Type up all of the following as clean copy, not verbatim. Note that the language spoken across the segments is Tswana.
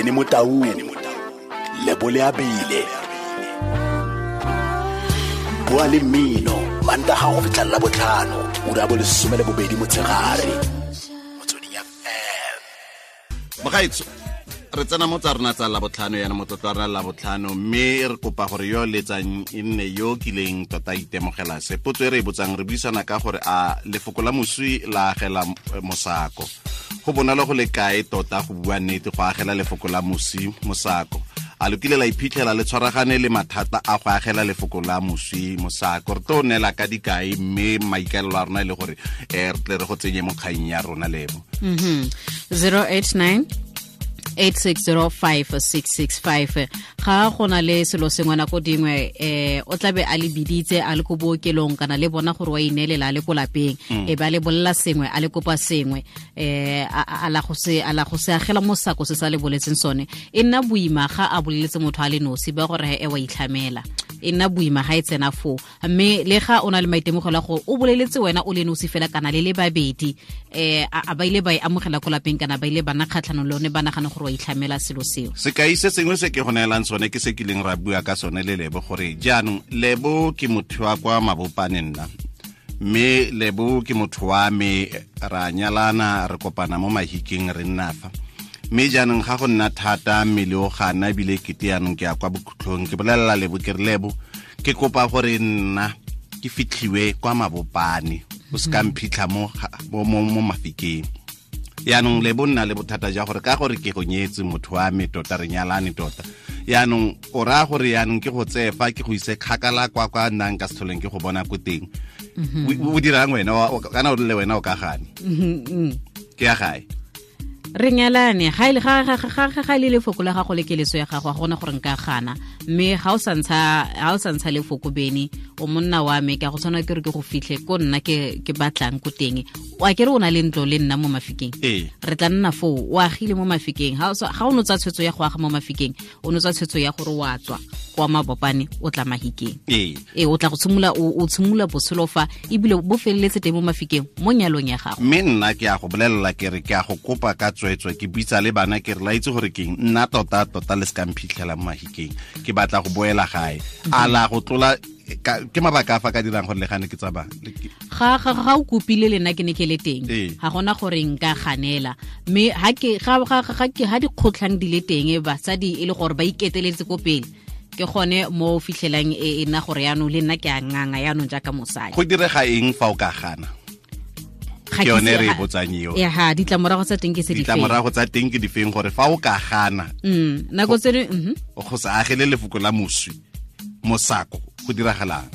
Benny Motau, Lebole Abile. Bua le mmino Mantaga go fitlha la botlhano, ura bo 12 motshegare. Motsweding FM. Mogaetso, re tsena mo tsa rona tsa Labotlhano, yana motlotlo wa rona Labotlhano, mme re kopa gore yo letsang e nne yo kileng tota itemogela se. Potso e re e botsang, re buisana ka gore a lefoko la moswi la agela mosako. Go bonolo go le kae tota go bua nnete go agela lefoko la moswi mosako? A lo kile la iphitlhela le tshwaragane le mathata a go agela lefoko la moswi mosako? Re tlo neela ka dikai, mme maikaelelo a rona e le gore re tle re go tsenye mo kgang ya rona, Lebo. 089 8605665. Ga go na le selo sengwe nako dingwe, o tlabe a le biditse a le ko bookelong, kana le bona gore wa ineelela a le ko lapeng, e ba le bolela sengwe, a le kopa sengwe, a la go se agela mosako se sa le boletseng sone. E nna boima ga a boleletse motho a le nosi, ba gore e wa itlhamela, e nna boima ga e tsena foo. Mme le ga o na le maitemogelo a gore o boleletse wena o le nosi fela kana le le babedi, a ba ile ba e amogela ko lapeng, kana ba ile ba nna kgatlhanong le one, ba nagana gore wa itlhamela selo seo. Sekai se sengwe se ke go neelang sone ke se kileng ra bua ka sone le Lebo, gore jaanong Lebo ke motho wa kwa Mabopane nna, mme Lebo ke motho wa me, ra nyalana, re kopana mo Mahikeng, re nna fa. Mme jaanong ga go nna thata, mmele o gana, ebile kete jaanong ke ya kwa bokhutlhong, ke bolelela Lebo ke re, Lebo, ke kopa gore nna ke fitlhiwe kwa Mabopane, o se ka mphitlha mo Mafikeng. Yaanong Lebo nna le bothata ja gore ka gore ke go nyetse motho wa me tota, re nyalane tota, yaanong o raya gore yaanong ke go tseye fa ke go ise kgakala kwa kwa nnang ka setlholeng ke go bona ko teng. O dirang wena? Kana o rile wena o ka gane ke ya gae. Re nyalane, ga ile lefoko la gago le keletso ya gago, ga gona gore nka gana. Mme ga o sa ntsha lefoko, Bene, o monna wa me, ka go tshwana ke re ke go fitlhe ko nna ke batlang ko teng. Wa ke re o na le ntlo le nna mo Mafikeng, re tla nna foo, o agile mo Mafikeng. Ga o no tsa tshwetso ya go aga mo Mafikeng, o no tsa tshwetso ya gore wa tswa kwa Mabopane o tla Mahikeng. O tla go tshimolola, o tshimolola botshelo fa, ebile bo feleletse teng mo Mafikeng mo nyalong ya gago. Mme nna ke a go bolelela ke re ke a go kopa ka tswetswe, ke bitsa le bana ke re la itse gore keng nna tota tota le se ka mphitlhela mo Mahikeng, ke batla go boela gae. A la go tlola ke mabaka a fa ka dirang gore le gane ke tsamaya. Ga o kopile le nna ke ne ke le teng, ga gona gore nka ganela. Mme ga dikgotlhang di le teng, basadi e le gore ba iketeletse ko pele, ke gone mo fitlhelang e nna gore yaanong le nna ke a nganga yaanong jaaka mosadi. Go direga eng fa o ka gana? Ke yone re e botsang eo. Ya, ditlamorago tsa teng ke se difeng? Ditlamorago tsa teng ke difeng gore fa o ka gana? Nako tse dingwe go sa agele lefoko la moswi mosako, go diragalang?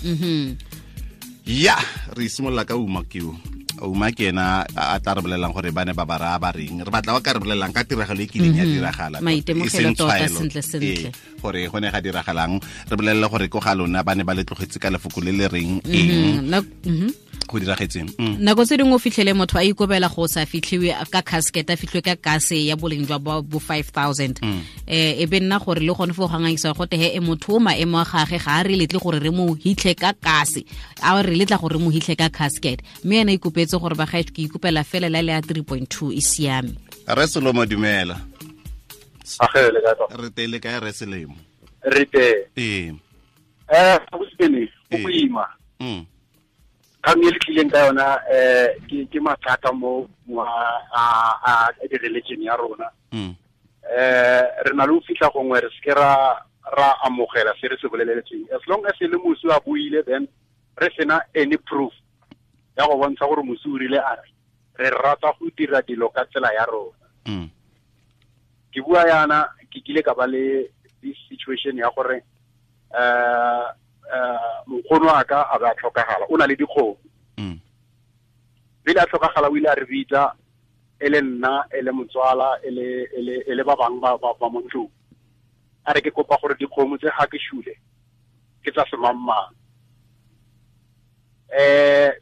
Ya, re simolola ka Uma keo. Uma ke ena a tla re bolelelang gore ba ne ba ba raya ba reng. Re batla ba ka re bolelelang ka tiragalo e kileng ya diragala, maitemogelo tota sentle sentle, gore go ne ga diragalang. Re bolelele gore ko ga lona ba ne ba le tlogetse ka lefoko le le reng eng, go diragetseng. Nako tse dingwe o fitlhele motho a ikobela go sa fitlhiwe ka casket, a fitlhiwe ka kase ya boleng jwa bo 5000. E be nna gore le gone fo go ngangisa go te he motho o maemo a gage ga a re letle gore re mo hitlhe ka kase, a re letla gore re mo hitlhe ka casket, mme ena ikopetse gore ba gae ke ikopela fela la le ya 3.2 e siame. Re Selomo, dumela. Re tele kae re Selemo? Re teng. Ee. Go boima. Kgang e le tlileng ka yona ke mathata mo a di-religion ya rona. Re na le go fitlha gongwe re seke ra amogela se re se boleletseng. As long as e le moswi a buile, then re sena any proof ya go bontsha gore moswi o rile a re re rata go dira dilo ka tsela ya rona. Ke bua yana, ke kile ka ba le this situation ya gore nkgono wa ka a ba tlhokagala, o na le dikgomo. Pele a tlhokagala o ile a re bitsa, e le nna, e le motswala, e le ba bangwe ba mo ntlong. A re ke kopa gore dikgomo tse ga ke shule ke tsa semangmang.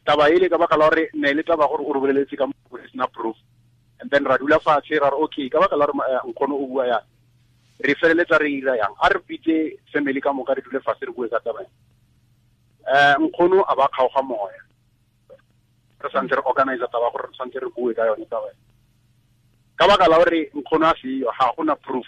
Taba ele ka baka la gore ne le taba gore o re boleletse ka mo sena proof, and then ra dula fatshe ra re okay, ka baka la gore nkgono o bua yang, re feleletsa re ira yang, a re bitse family ka moka re dule fatshe re bue ka taba. Nkgono a ba kgaoga moya, re santse re organize taba gore re santse re bue ka yone taba. Ka baka la gore nkgono a seyo, ga gona proof.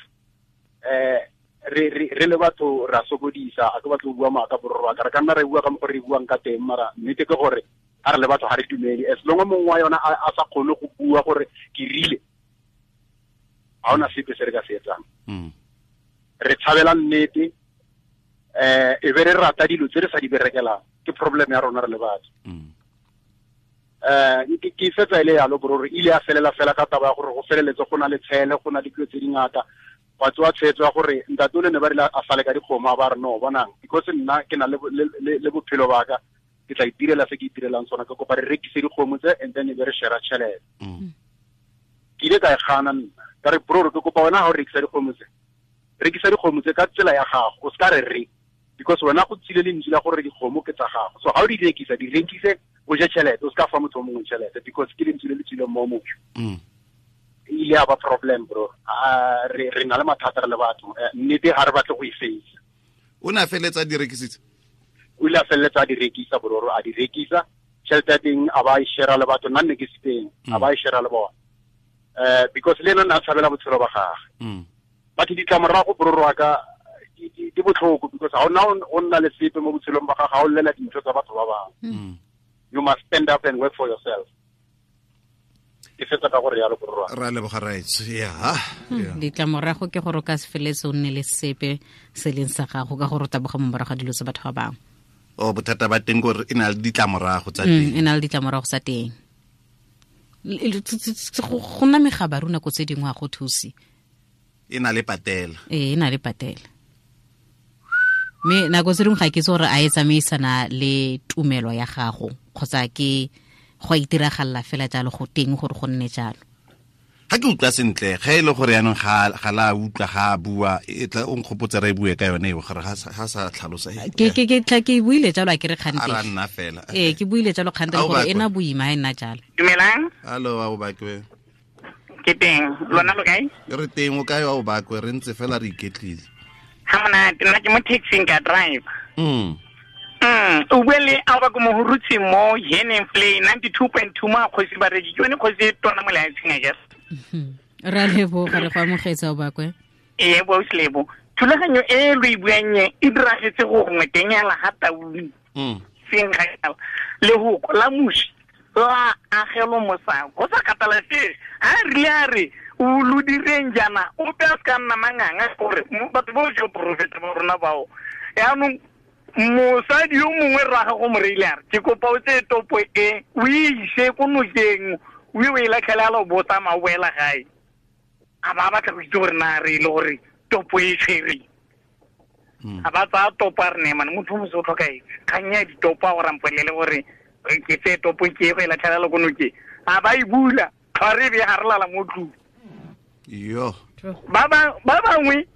Re le batho ra sokodisa a ke batlo go bua maaka borro ka re ka nna re bua ka mo re buang ka teng mara nnete ke gore a re le batho ga re dumele as long mongwe wa yona a sa kgone go bua gore ke rile ga ona sepe se re ka se etsang. Re tshabela nnete e be re rata dilo tse re sa di berekelang ke problem ya rona re le batho. Ke fetsa ile yalo borro ile ya felela fela ka taba ya gore go feleletse go na le tshele go na le dilo tse dingata wa tswa tshwetso ya gore ntate o le ne ba rile a sale ka dikgomo ba re no bonang because nna ke na le bophelo ba ka ke tla itirela se ke itirelang sona ke kopa re rekise dikgomo tse and then e be re share tšhelete. Ke ile ka e gana nna ka re bro ke kopa wena ha o rekisa dikgomo tse rekisa dikgomo tse ka tsela ya gago o se ka re re because wena go tsile lentswe la gore dikgomo ke tsa gago so ha o di rekisa di rekise o je tšhelete o se ka fa motho o mongwe tšhelete because ke lentswe le le tswileng mo motho. Ile a ba problem bro. Re na le mathata re le batho nnete ga re batle go e face. O ne a feletsa di rekisitse? O ile a feletsa di rekisa bro, a di rekisa tšhelete ya teng a ba e share le batho nna nne ke se teng a ba e share le bona because le ena ne a tshabela botshelo ba gagwe. Batho ditlamorago bro wa ka di botlhoko because ga ona o nna le sepe mo botshelong ba gago ga o llela dintho tsa batho ba bangwe. You must stand up and work for yourself. Ke fetsa ka gore yalo borwa. Ra leboga raitso. Ya. Ditlamorago ke gore o ka se feletse o nne le sepe se leng sa gago ka gore o taboga mo morago ga dilo tsa batho ba bangwe. O bothata ba teng gore e na le ditlamorago tsa teng. E na le ditlamorago tsa teng. Go nna megabaru nako tse dingwe ga go thuse. E na le patela. Ee, e na le patela. Mme nako tse dingwe ga ke itse gore a e tsamaisana le tumelo ya gago kgotsa ke go itiragalla fela jalo go teng gore go nne jalo. Ga ke utlwa sentle ge e le gore yaanong ga la utlwa ga a bua e tla o nkgopotse re e bue ka yone eo gore ga sa tlhalosa. Ke tla ke buile jalo a ke re kgante. A ra nna fela. Ee, ke buile jalo kgante gore e na boima e nna jalo. Dumelang. Hallo, wa o bakwe. Ke teng. Lona lo kae? Re teng o kae wa o bakwe re ntse fela re iketlile. Ha monate nna ke mo taxing ka drive. O bue le a ba ko mohurutsi mo Heneng Play 92.2 mo kgosi ba reki ke yone kgosi e tona mo lefatsheng a ke. Ra leboga re go amogetsa o bakwe. Ee bo Lebo. Thulaganyo e lo e buang e diragetse go gongwe teng ya la ga Taung. Seng ga lehoko la musi la agelo mosako go sa kgathalesege a rile a re o lo direng jaana ope a se ka nna manganga gore batho bo jo porofeta ba rona bao yaanong mosadi yo mongwe rraga go mo reile a re ke kopa o tseye topo e o e ise ko nokeng o e latlhele a lo botsa ma o boela gae a ba batla go itse gore na re ile gore topo e tshwereng. A ba tsaya topo a re ne mane motho o mose o tlhokaetse kgang ya ditopo a gore a mpolele gore ke tseye topo ke go e latlhela ko nokeng a ba e bula tlhware e be ga re lala mo tlung. Yo. Ba bangwe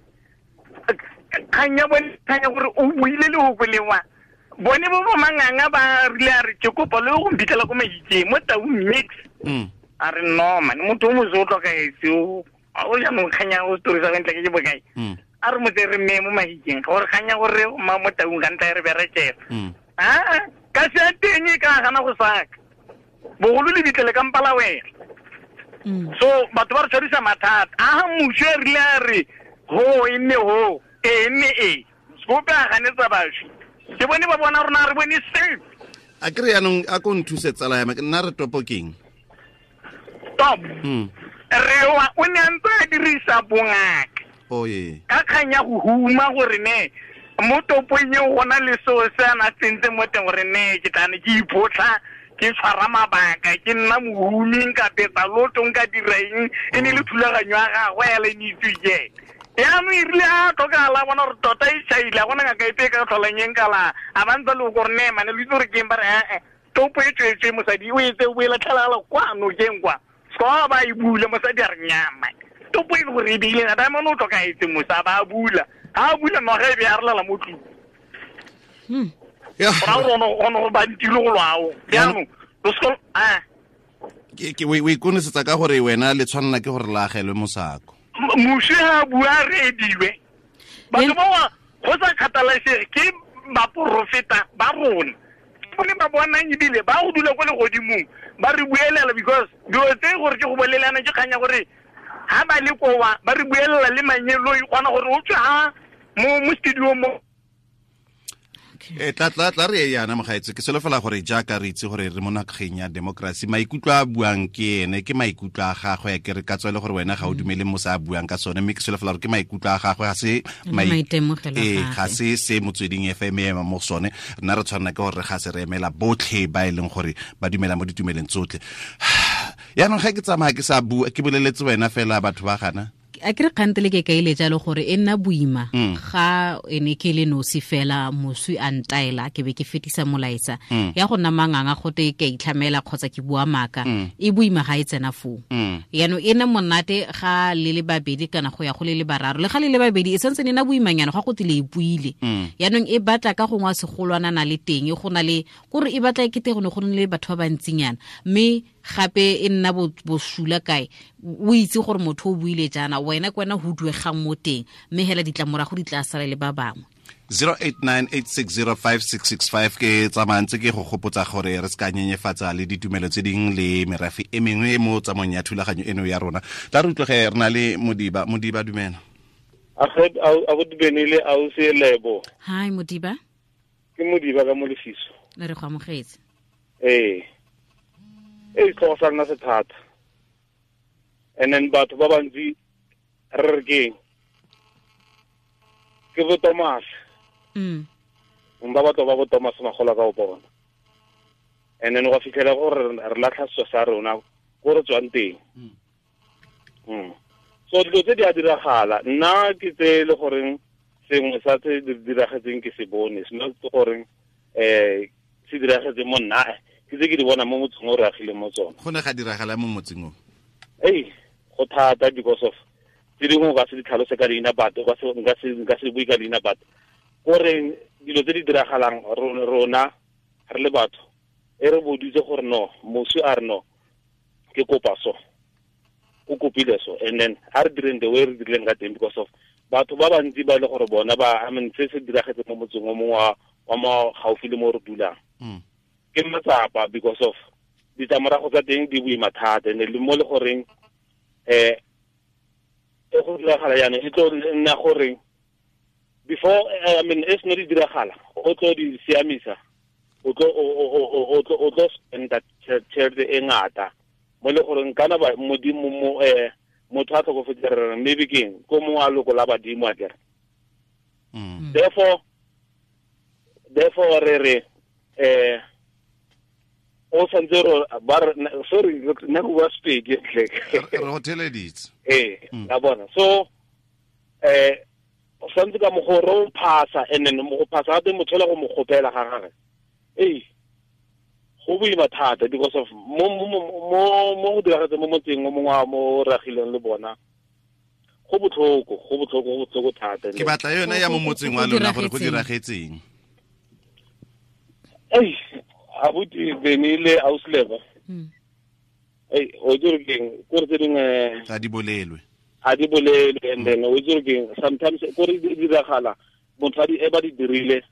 kgang ya bone kgang ya gore o buile lehoko lewa bone bo bo manganga ba rile a re ke kopa le go mphitlhela ko Mahikeng mo Taung mix. A re no man motho o mose o tlhokaetse o jaanong kgang ya o story sa ntle ke bokae. A re motse re mme mo Mahikeng gore kgang ya gore ma mo Taung ka ntla re berekela. Ka se teng e ka gana go saka bogolo le bitlele ka mpala wena. So batho ba re tshwarisa mathata a mmuso e rile a re ho e nne ho e nne e sekope a ganetsa bašwi ke bone ba bona rona re bone safe. A kry yaanong a ko nthuse tsala ya me nna re topo keng? Top rewa o ne a ntse a dirisa bongaka ka kgang ya go huma gore ne mo topong eo go na le seo se a na tsentse mo teng gore ne ke tlane ke iphotlha ke tshwara mabaka ke nna mohumi nka betsa loto nka dira eng e ne le thulaganyo ya gagwe ya le ne itse ke yaanong e rile a tlhokagala bona gore tota e tšhaile a gona ngaka epe e ka tlholang eng kala a ba ntse le gore ne mane lo itse gore ke eng ba re ee topo e tswetswe mosadi o etse o e latlhelagala kwa nokeng kwa seka ba e bula mosadi a re nyama topo e le gore e beile diamond o tlhokaetse mosa ba a bula ha a bula noga e be a relela mo tlung. Gora gore go bantile go lwao jaanong o ikonesetsa ka gore wena le tshwanela ke gore la agelwe mosako. Moswi ha a bua re ediwe batho bao go sa kgathalesege ke baporofeta ba rona ke bone ba bonang ebile ba go dula ko legodimong ba re buelela because dilo tse gore ke go bolelana ke kgang ya gore Ha ba le kowa ba re buelela le manyeloi gona gore o tswe ha mo studio mo. Tla re yana mogaetse ke solofela gore jaaka re itse gore re mo nageng ya democracy maikutlo a buang ke ene ke maikutlo a gagwe ke re ka tswele gore wena ga o dumele mo sa buang ka sone mme ke solofela gore ke maikutlo a gagwe ga se maitemogelo ga se se Motsweding FM ema mo sone rena re tshwanela ke gore ga se re emela botlhe ba e leng gore ba dumela mo ditumeleng tsotlhe. Yaanong ga ke tsamaya ke sa bua ke boleletse wena fela batho ba gana a ke re kgantele ke kaile jalo gore e nna boima ga ene ke le nosi fela moswi a ntaela ke be ke fetisa molaetsa ya go nna manganga gote ke itlhamela kgotsa ke bua maaka e boima ga e tsena foo. Yaanong e nna monate ga le le babedi kana go ya go le le bararo le ga le le babedi e santse ne nna boimanyana ga go tile e buile. Yaanong e batla ka gongwe segolwana na le teng go na le kore e batla e kete go ne go le batho ba bantsinyana mme gape e nna bosula kae o itse gore motho o buile jaana wena ke wena ho duegang mo teng mme hela ditlamorago di tla sala le ba bangwe. 0898605665 ke tsamantse ke go gopotsa gore re se ka nyenyefatsa le ditumelo tse ding le merafe e mengwe mo tsamong ya thulaganyo eno ya rona. Tla re utlwege re na le Modiba. Modiba dumela. A go dubenile a o se lebo. Hi Modiba. Ke Modiba ka mo lefiso. Re go amogetse. Ee. E tlo sa nna sethata. And then batho ba bantsi re re ke bo Thomas. Ba batho ba bo Thomas magola ka o bona. And then go fitlhela gore re latlha setso sa rona ko re tswang teng. So dilo tse di a diragala nna ke tse le goreng sengwe sa tse di diragetseng ke se bone se not goreng se diragetse mo nna ke tse ke di bona mo motseng o re agile mo tsona. Go ne ga diragala mo motseng o? Ei, go thata because of tse dingwe o ka se di tlhalose ka leina batho nka se bue ka leina batho goreng dilo tse di diragalang rona re le batho e re boditse gore no moswi a re no ke kopa so o kopile so and then a re direng the way re dirileng ka teng because of batho ba bantsi ba e le gore bona ba I mean se se diragetse mo motseng o mongwe wa mo gaufi le mo re dulang ke matsapa because of ditlamorago tsa teng di boima thata and le mo le goreng e go diragala jaanong e tlo nna gore before I mean e seno di diragala o tlo di siamisa o tlo spenda tšhelete e ngata mo le goreng kana ba modimo mo motho a tlhokofetse re maybe keng ko mongwe a loko la badimo a kere. Therefore re re o santse ba sorry nna go bua Sepedi re go theleditse. La bona so o santse ka mogoro o phasa and then mo go phasa gape motho la go mo gopela ga gagwe ei go boima thata because of mo go diragetse mo motseng o mongwe wa mo ragileng le bona go botlhoko thata. Ke batla yone ya mo motseng wa lona gore go diragetseng. Ei abuti benile ausleva ei o dire keng gore tse dingwe a di bolelwe and then o dire keng sometimes gore di diragala motho a di e ba di dirile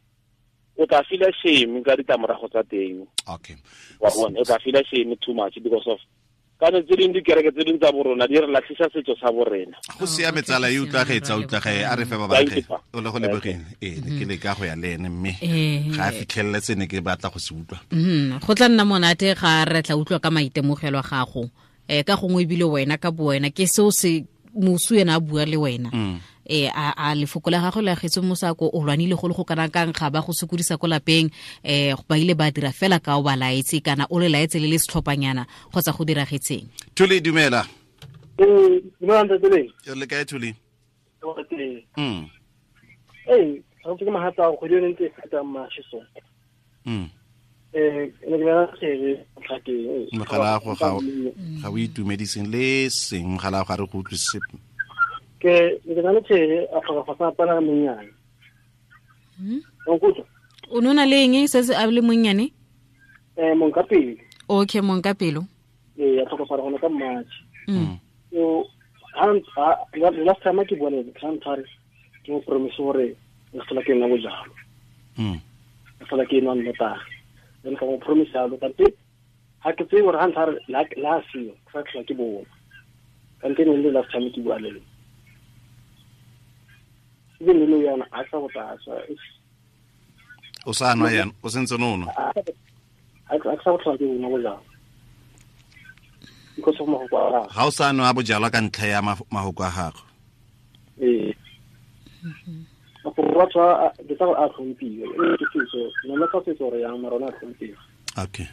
o tla feel shame ka ditlamorago tsa teng. Okay. Wa bona o tla feel shame too much because of kana tse dingwe dikereke tse dingwe tsa borona di re latlhisa setso sa borena. Go siame tsala e utlwagetse utlwage a re fe ba batle o le go lebogeng ke le ka go ya le ene mme ga a fitlhelele tsene ke batla go se utlwa. Go tla nna monate ga re tla utlwa ka maitemogelo a gago ka gongwe ebile wena ka bo wena ke seo se moswi ena a bua le wena a lefoko la gagwe le agetse mosako o lwanile go le go kana kang ga ba go sokodisa ko lapeng ba ile ba dira fela ka o ba laetse kana o le laetse le le setlhophanyana kgotsa go diragetseng. Thuli dumela. Dumela ntate le. Le kae Thuli? Ei, ga ke mahatsa go di ntse feta mashiso. Ne ke na tsere tlhakeng. Mogala go ga o itumediseng le seng mogala ga re go utlwise. Ke ne ke na le tsere a tlhoka fa pana monnyane. O nona le eng se se a le monnyane? Monkapelo. Okay, Monkapelo. A tlhoka fa gona ka March. So last time ke bone ke ke mo promise gore re tlhola ke nna bojalo. Re tlhola ke nwa nnotagi. Then ka mo promise yalo kante ha ke tsebe gore ha ntlha la seo ke sa tlhola ke bona. Kante ne le last time ke bua le lona. Even le yana a sa botsa. O sa nwa yana, o sentse no nwa. A sa botsa ke nwa bojalwa. Because of mahoko a gagwe. Ga o sa nwa bojalwa ka ntlha ya mahoko a gagwe. Ee. Mafoko a ke tsa a tlhomphiwe. Ke setso, nna ka setso re yang mara ona a tlhomphiwe. Okay.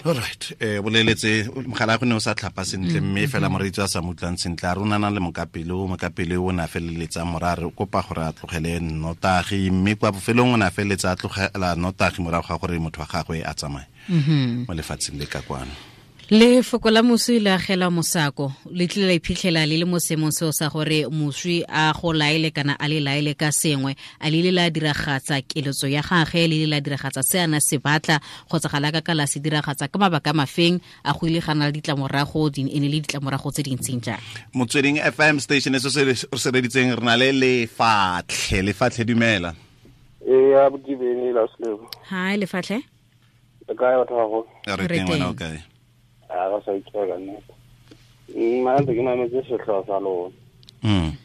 All right. Boleletse mogala go ne o sa tlhapa sentle mme fela moreetsi a sa mutlang sentle a rona na le mokapele o ne a feleletsa morare o kopa gore a tlogele nnotagi mme kwa bofelong o ne a feleletsa a tlogela nnotagi morago ga gore motho wa gagwe a tsamaye mo lefatsheng le ka kwano. Lefoko la moswi le agela mosako le tlile la iphitlhela le le mo seemong seo sa gore moswi a go laele kana a le laele ka sengwe a le ile la diragatsa keletso ya gagwe le ile la diragatsa se a na se batla kgotsa ga la ka la se diragatsa ka mabaka mafeng a go ile ga na le ditlamorago di ene le ditlamorago tse dintseng jang. Motsweding FM station e se se reditseng re na le Lefatlhe. Lefatlhe dumela. Ee, a botibeni la selebo. Hi Lefatlhe. Le kae batho ba go? Re teng wena o kae? A ga sa itshwara nnete. Mma ntse ke mametse setlhogo sa lona.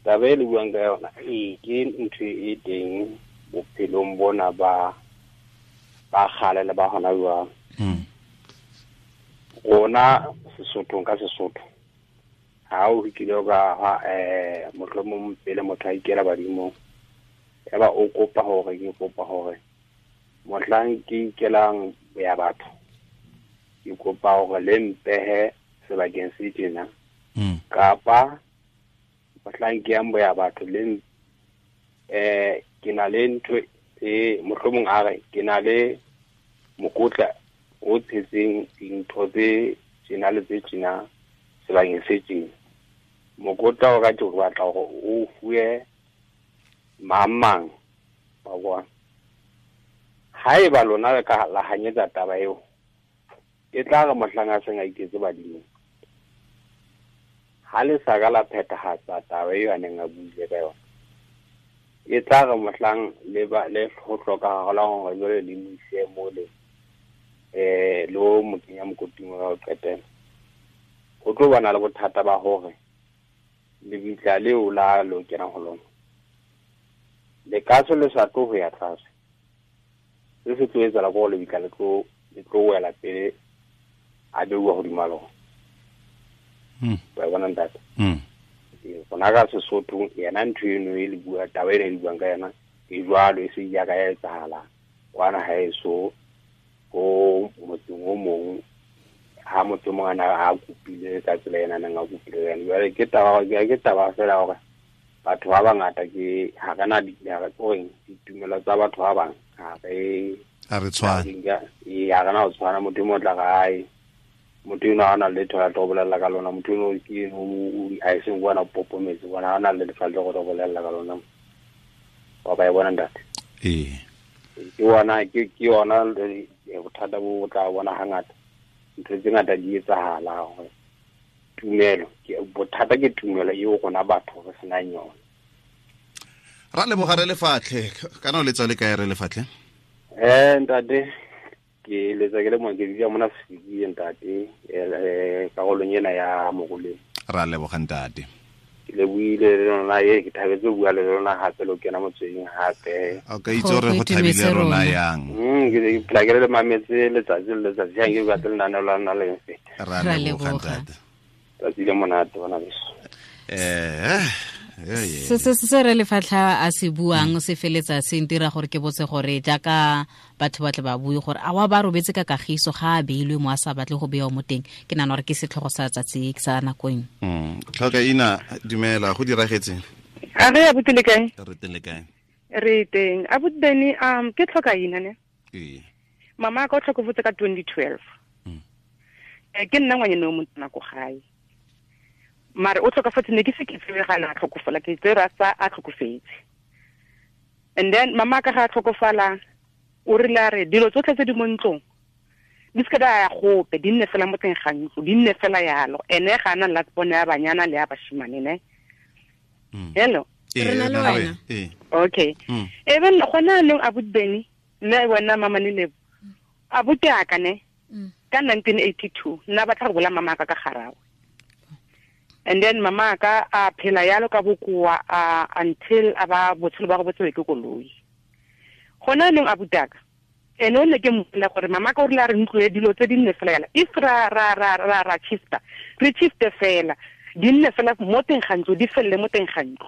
Taba e le buang ka yona ee ke ntho e teng bophelong bona ba kgale le ba hona jwang. Rona Sesothong ka Sesotho ha o kile ka ha mohlomong pele motho a ikela badimong ya ba o kopa hore ke kopa hore mohlang ke ikelang ya batho ke kopa hore le mpehe sebakeng se tjena kapa mohlang ke yang boya batho le ke na le ntho e mohlomong a re ke na le mokotla o tshetseng dintho tse tjena le tse tjena sebakeng se tjena. Mokotla o ka ke batla hore o fuwe mang wa bona. Haeba lona le ka la hanyetsa taba eo e tla re mohlang a seng a iketse badimong ha le sa ka la phethahatsa taba eo a neng a buile ka yona e tla re mohlang le ba le ho hlokahala hore jwale le mo ise mole le o mo kenya mokoting wa ho qetela ho tlo bana le bothata ba hore lebitla leo la lo kena ho lona le kaso le sa tlo ho ya tlase se se tlo etsahala ko lebitla le tlo wela pele a beuwa hodima lona. Wa bona ntate. Rona ka Sesotho yena ntho eno e le bua taba ena e le buang ka yona e jwalo e se ya ka ya etsahala kwana haeso ko motseng o mong ha motho mong ana a kopile ka tsela ena nang a kopile yona. Jwale ke taba fela hore batho ba bangata ke ha re na ditumelo tsa batho ba bang ha re tshwane. Ee, ha re na ho tshwana. Motho e mong o tla re hae motho eno ha na letho la tlo bolella ka lona, motho eno ke a e seng bona popometse bona ha na le lefa le go tlo bolella ka lona. Wa ba e bona ntate. Ee. Ke yona ke yona bothata bo tla bona hangata. Ntho tse ngata di etsahala hore tumelo ke bothata ke tumelo eo rona batho re senang yona. Ra leboga re Lefatlhe. Kana o letsa le kae re Lefatlhe? Ntate ke letsa ke le mo ke dula mona Sefiki ntate karolong ena ya Moruleng. Ra leboga ntate. Ke le buile le lona e ke thabetse ho bua le lona hape lo kena motsweding hape. O ka itse hore go thabile rona yang. Ke phela ke le mametse letsatsi le letsatsi ha ke batle lenaneo la lona le mfeta. Ra leboga ntate. Tsatsi le monate bona beso. Se re Lefatlha a se buang se feletsa se ntira gore ke botse gore jaaka batho ba tle ba bue gore a wa ba robetse ka kagiso ga a beilwe mo a sa batle go bewa mo teng. Ke nagana gore ke setlhogo sa tsatsi sa nakong. Tlhoka ina dumela go diragetse. A re abuti le kae? Re teng le kae? Re teng. Abuti Beni ke tlhoka ina ne? Ee. Mama ka o tlhokofetse ka 2012. Ke nna ngwanyana o motona ko gae. Mare o tlhokafetse ne ke se ke tsebe ga na tlhokofala ke tsere a sa a tlhokofetse. And then mama ka ga a tlhokofala o rile a re dilo tsotlhe tse di mo ntlong di se ka di ya gope di nne fela mo teng ga ntlo di nne fela yalo ene ga ana last born ya banyana le ya bashimane ne. Hello. Re na le wena. Okay. E ben gona nong abuti Beni le wena mama ne lebo abuti aka ne. Ka 1982 nna batla go bola mama ka ka garawe. And then mama ka a phela yalo ka bokoa until aba botshelo ba go botsewe ke koloi. Gona neng abutaka ene o ne ke mmolela gore mama ka o rile a re ntlo e dilo tse di nne fela yala if ra ra ra ra ra shifta re shifte fela di nne fela mo teng ga ntlo di felele mo teng ga ntlo.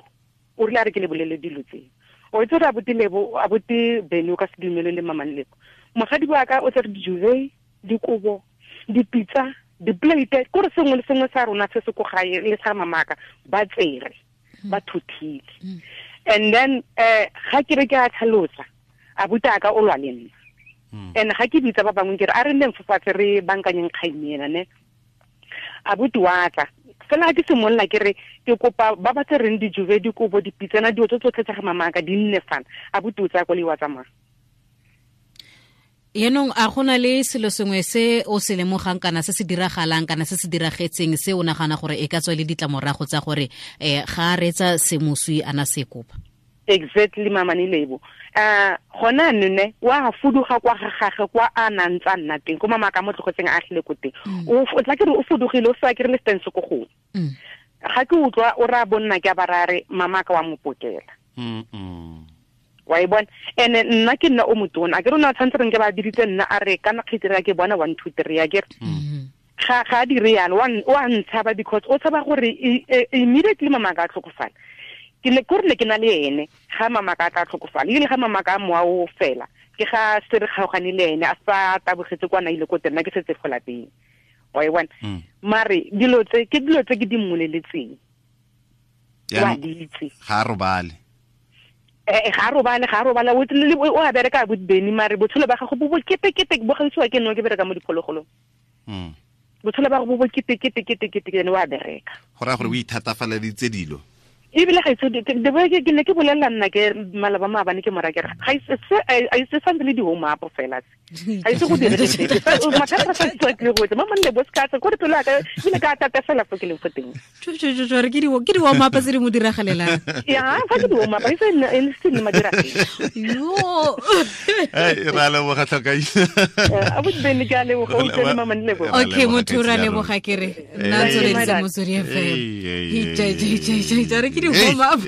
O rile a re ke le bolele dilo tse. O itse gore abuti Lebo abuti Beni o ka se dumele le mama Lebo. Mogadi wa ka o tsere dijuve, dikobo, dipitsa, diplate, kore sengwe le sengwe sa rona se se ko gae le sa mamaka ba tsere ba thuthile. And then ga ke re ke a tlhalosa abuti a ka o lwa le nna. And ga ke bitsa ba bangwe ke re a re nneng fatshe re bankanyeng kgang ena ne. Abuti wa tla fela ke simolola ke re ke kopa ba ba tsereng dijuve, dikobo, dipitsana, dilo tse tsotlhe tsa ga mamaka di nne fana. Abuti o tsaya koloi wa tsamaya. Yenong a gona le selo sengwe se o se lemogang kana se se diragalang kana se se diragetseng se o nagana gore e ka tswa le ditlamorago tsa gore ga a reetsa se moswi ana se kopa? Exactly mama ni Lebo. Gona nne wa fuduga kwa ga gagwe kwa a nang tsa nna teng ko mama ka mo tlogetseng a agile ko teng. O tla ke re o fudugile o sa ke re le stance ko gongwe. Ga ke utlwa o ra bonna ke a barare mama ka wa mo pokela. Wa e bona ene nna ke nna o motona a ke rona tshwanetse re nke ba diritse nna a re kana kgitira ke bona 1 2 3 a ke ga ga dire yalo wa ntshaba because o tshaba gore immediately mama ka tlhokofala. Ke ne ke rile ke na le ene ga mama ka tla tlhokofala ile ga mama ka moa o fela ke ga se re kgaogane le ene a sa tabogetse kwa na ile ko teng ke setse go lapeng. Wa e bona mare dilo tse ke dilo tse ke di mmoleletseng wa ditse ga robale ga robale o a bereka abuti Beni mare botshelo ba gago bo bo kete kete bo gaisiwa ke nno ke bereka mo diphologolong. Botshelo ba gago bo bo kete kete kete kete ene wa bereka go raya gore o ithatafaleditse dilo ebile ga itse ke ne ke bolelela nna ke malaba maabane ke mora ke re ga ise santse le di-home up fela se ga ise go dire mathata sa tswa ke go etsa mama nne bo se ka tsa gore pelo ya ka ebile ka tata fela fo ke leng fo teng. Re ke di-warm up tse di mo diragalelang. Ya fa ke di-warm up e se nne madiragale. Yo re a leboga tlhokaina. Abuti Beni ke a leboga o utlwe le mama nne bo. Okay motho re a leboga ke re nna tsweletse Motswedi FM. Re ke di-warm up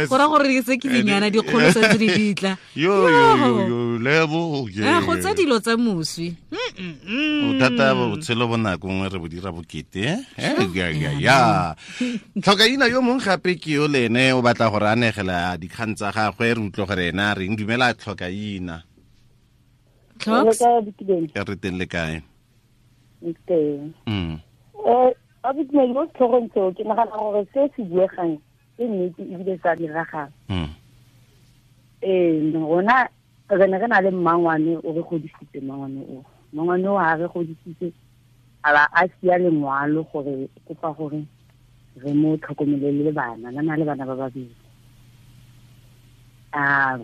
go ra gore se ke dinyana dikgolo sa tse di ditla. Yo yo yo Lebo go tsa dilo tsa moswi. O thata botshelo bo nako nngwe re bo dira bokete ya. Tlhokaina yo mongwe gape ke yo le ene o batla gore a negela dikgang tsa gagwe re utlwe gore ena a reng. Dumela tlhokaina. Re teng le kae? Teng. Abuti mo setlhogong seo ke nagana gore se se buegang ke nnete ebile sa diragala. Rona re ne re na le mmangwane o re godisitse mmangwane o. Mmangwane o ha re godisitse a ba a sia lengwalo gore kopa gore re mo tlhokomele le bana na le bana ba babedi. A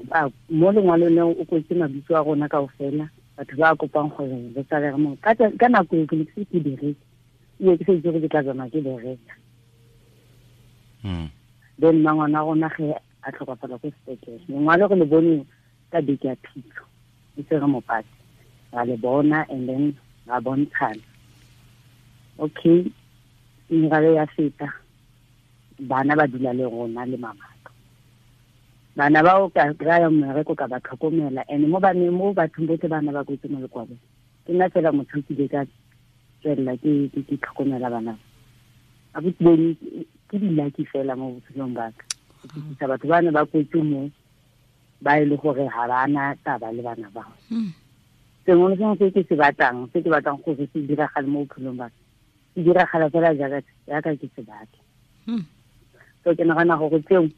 mo lengwalong leo o kwetse mabitso a rona kaofela batho ba kopang gore re tsale re mo ka nako e ke ne ke se ke bereke ebile ke sa itse gore ke tla tsamaya ke bereka. Then mmangwana rona ge a tlhokafala ko sepetlele lengwalo re le bone ka beke ya phitlho e se re mopate ra le bona and then ra bontshana. Okay meralo ya feta bana ba dula le rona le mamaka. Bana bao ka kry-a mmereko ka ba tlhokomela and mo baneng mo bathong botlhe bana ba kwetse mo lekwalong ke nna fela motho ke ile ka tswelela ke tlhokomela bana. Abuti Beni ke di-lucky fela mo botshelong ba ka. Ke fitlhisa batho ba ne ba kwetse mo ba e le gore ga ba na taba le bana bao. Sengwe le sengwe se ke se batlang se ke batlang gore se diragale mo bophelong ba ka se diragala fela jaaka ke se batla. So ke nagana gore tseo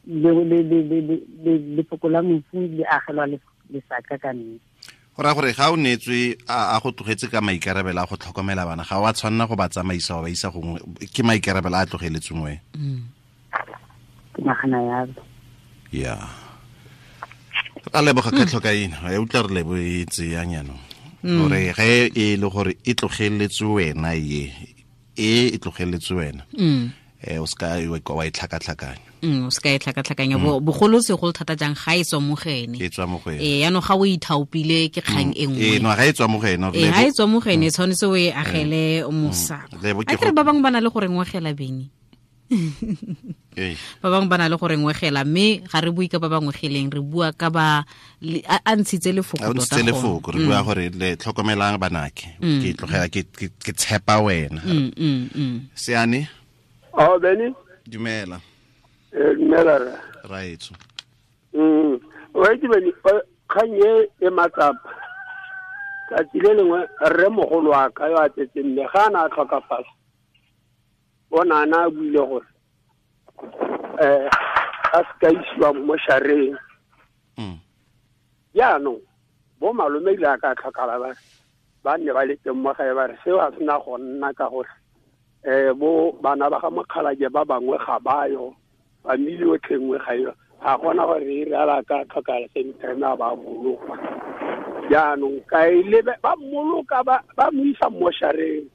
lefoko la mofu le agelwa lesaka ka nnete. Go raya gore ga o neetswe a go tlogetse ka maikarabelo a go tlhokomela bana ga wa tshwanela go ba tsamaisa wa ba isa gongwe ke maikarabelo a tlogeletsweng wena. Ke nagana yalo. Ya a leboga ka tlhokaina ya utlwa re lebo e tseyang jaanong gore ge e le gore e tlogeletswe wena ye e tlogeletswe wena O ska wa e tlhakatlhakanya. O ska e tlhakatlhakanya bogolo segolo thata jang ga e tswa mo go ene. E tswa mo go ene. Yaanong ga o ithaopile ke kgang e nngwe. No ga e tswa mo go ene. Ga e tswa mo go ene tshwanetse o e agele mosako. A kere ba bangwe ba na le gore ngwegela beng. Ba bangwe ba na le gore ngwegela mme ga re bue ka ba bangwe geleng re bua ka ba a ntshitse lefoko tota. A ntshitse lefoko re bua gore le tlhokomelang banake. Ke tlogela ke tshepa wena. Seane. Oh Benny. Dumela. Dumela ra. Raetso. Wa itse Benny kgang e matsapa. Tsatsi le lengwe rre mogolo wa ka yo a tsetseng mme ga a na a tlhokafala. Bona na buile gore a ska isiwa mo shareng. Jaanong bo malome ile a ka tlhokala ba nne ba le teng mo gae ba re seo a sena go nna ka gore bo bana ba ga mokgalake ba bangwe ga bayo family yotlhe nngwe ga yo ga gona gore e re ala ka tlhokala same time a ba bolokwa. Jaanong ka ile ba mmoloka ba mo isa mo shareng.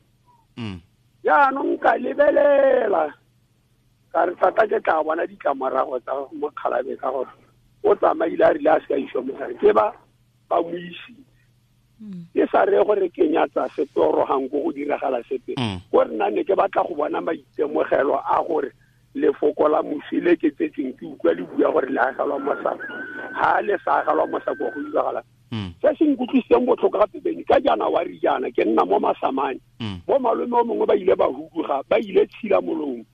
Jaanong ka lebelela ka re tata ke tla bona ditlamorago tsa mokgalabe ka gore o tsamaile a rile a se ka isiwa mosare ke ba mo isitse. Ke sa re gore ke nyatsa sepe oro gang ko go diragala sepe ko re nna ne ke batla go bona maitemogelo a gore lefoko la mosi le ke tsetseng ke utlwa le bua gore le agelwa mosako ga le sa agelwa mosako go diragala. Se se nkutlwisitseng botlhoko gape Beny ka January jaana ke nna mo Masamane. Bo malome o mongwe ba ile ba huduga ba ile tshila molomo.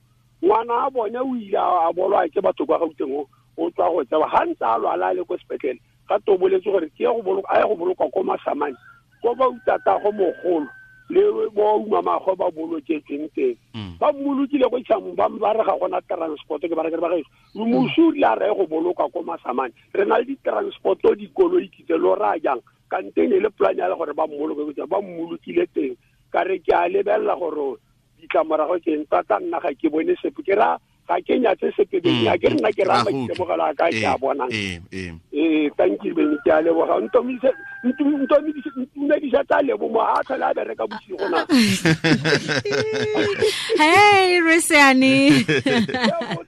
Ngwana a bone o ile a bolwa ke batho kwa Gauteng o tswa go tseba ga ntse a lwala a le ko sepetlele ga to boletse gore ke go boloka a ye go bolokwa ko Masamane ko ba utata go mogolo le bo umamagwe ba boloketsweng teng. Ba mmolokile ko Tšhamong ba re ga gona transport ke ba re ke ba gaetsho mosi o ile a re go boloka ko Masamane re na le di-transport-o dikoloi kitse lo raya jang kante ne le plan ya gore ba mmoloke ba mmolokile teng ka re ke a lebelela gore ditlamorago ke eng tata nna ga ke bone sepe ke ra ga ke nyatse sepe Beny a ke nna ke raya maitemogelo a ka ke a bonang. Thank you Beny ke a leboga ntumedisa tsa lebo mo a tlhole a bereka bosigo na. Hey Reseane.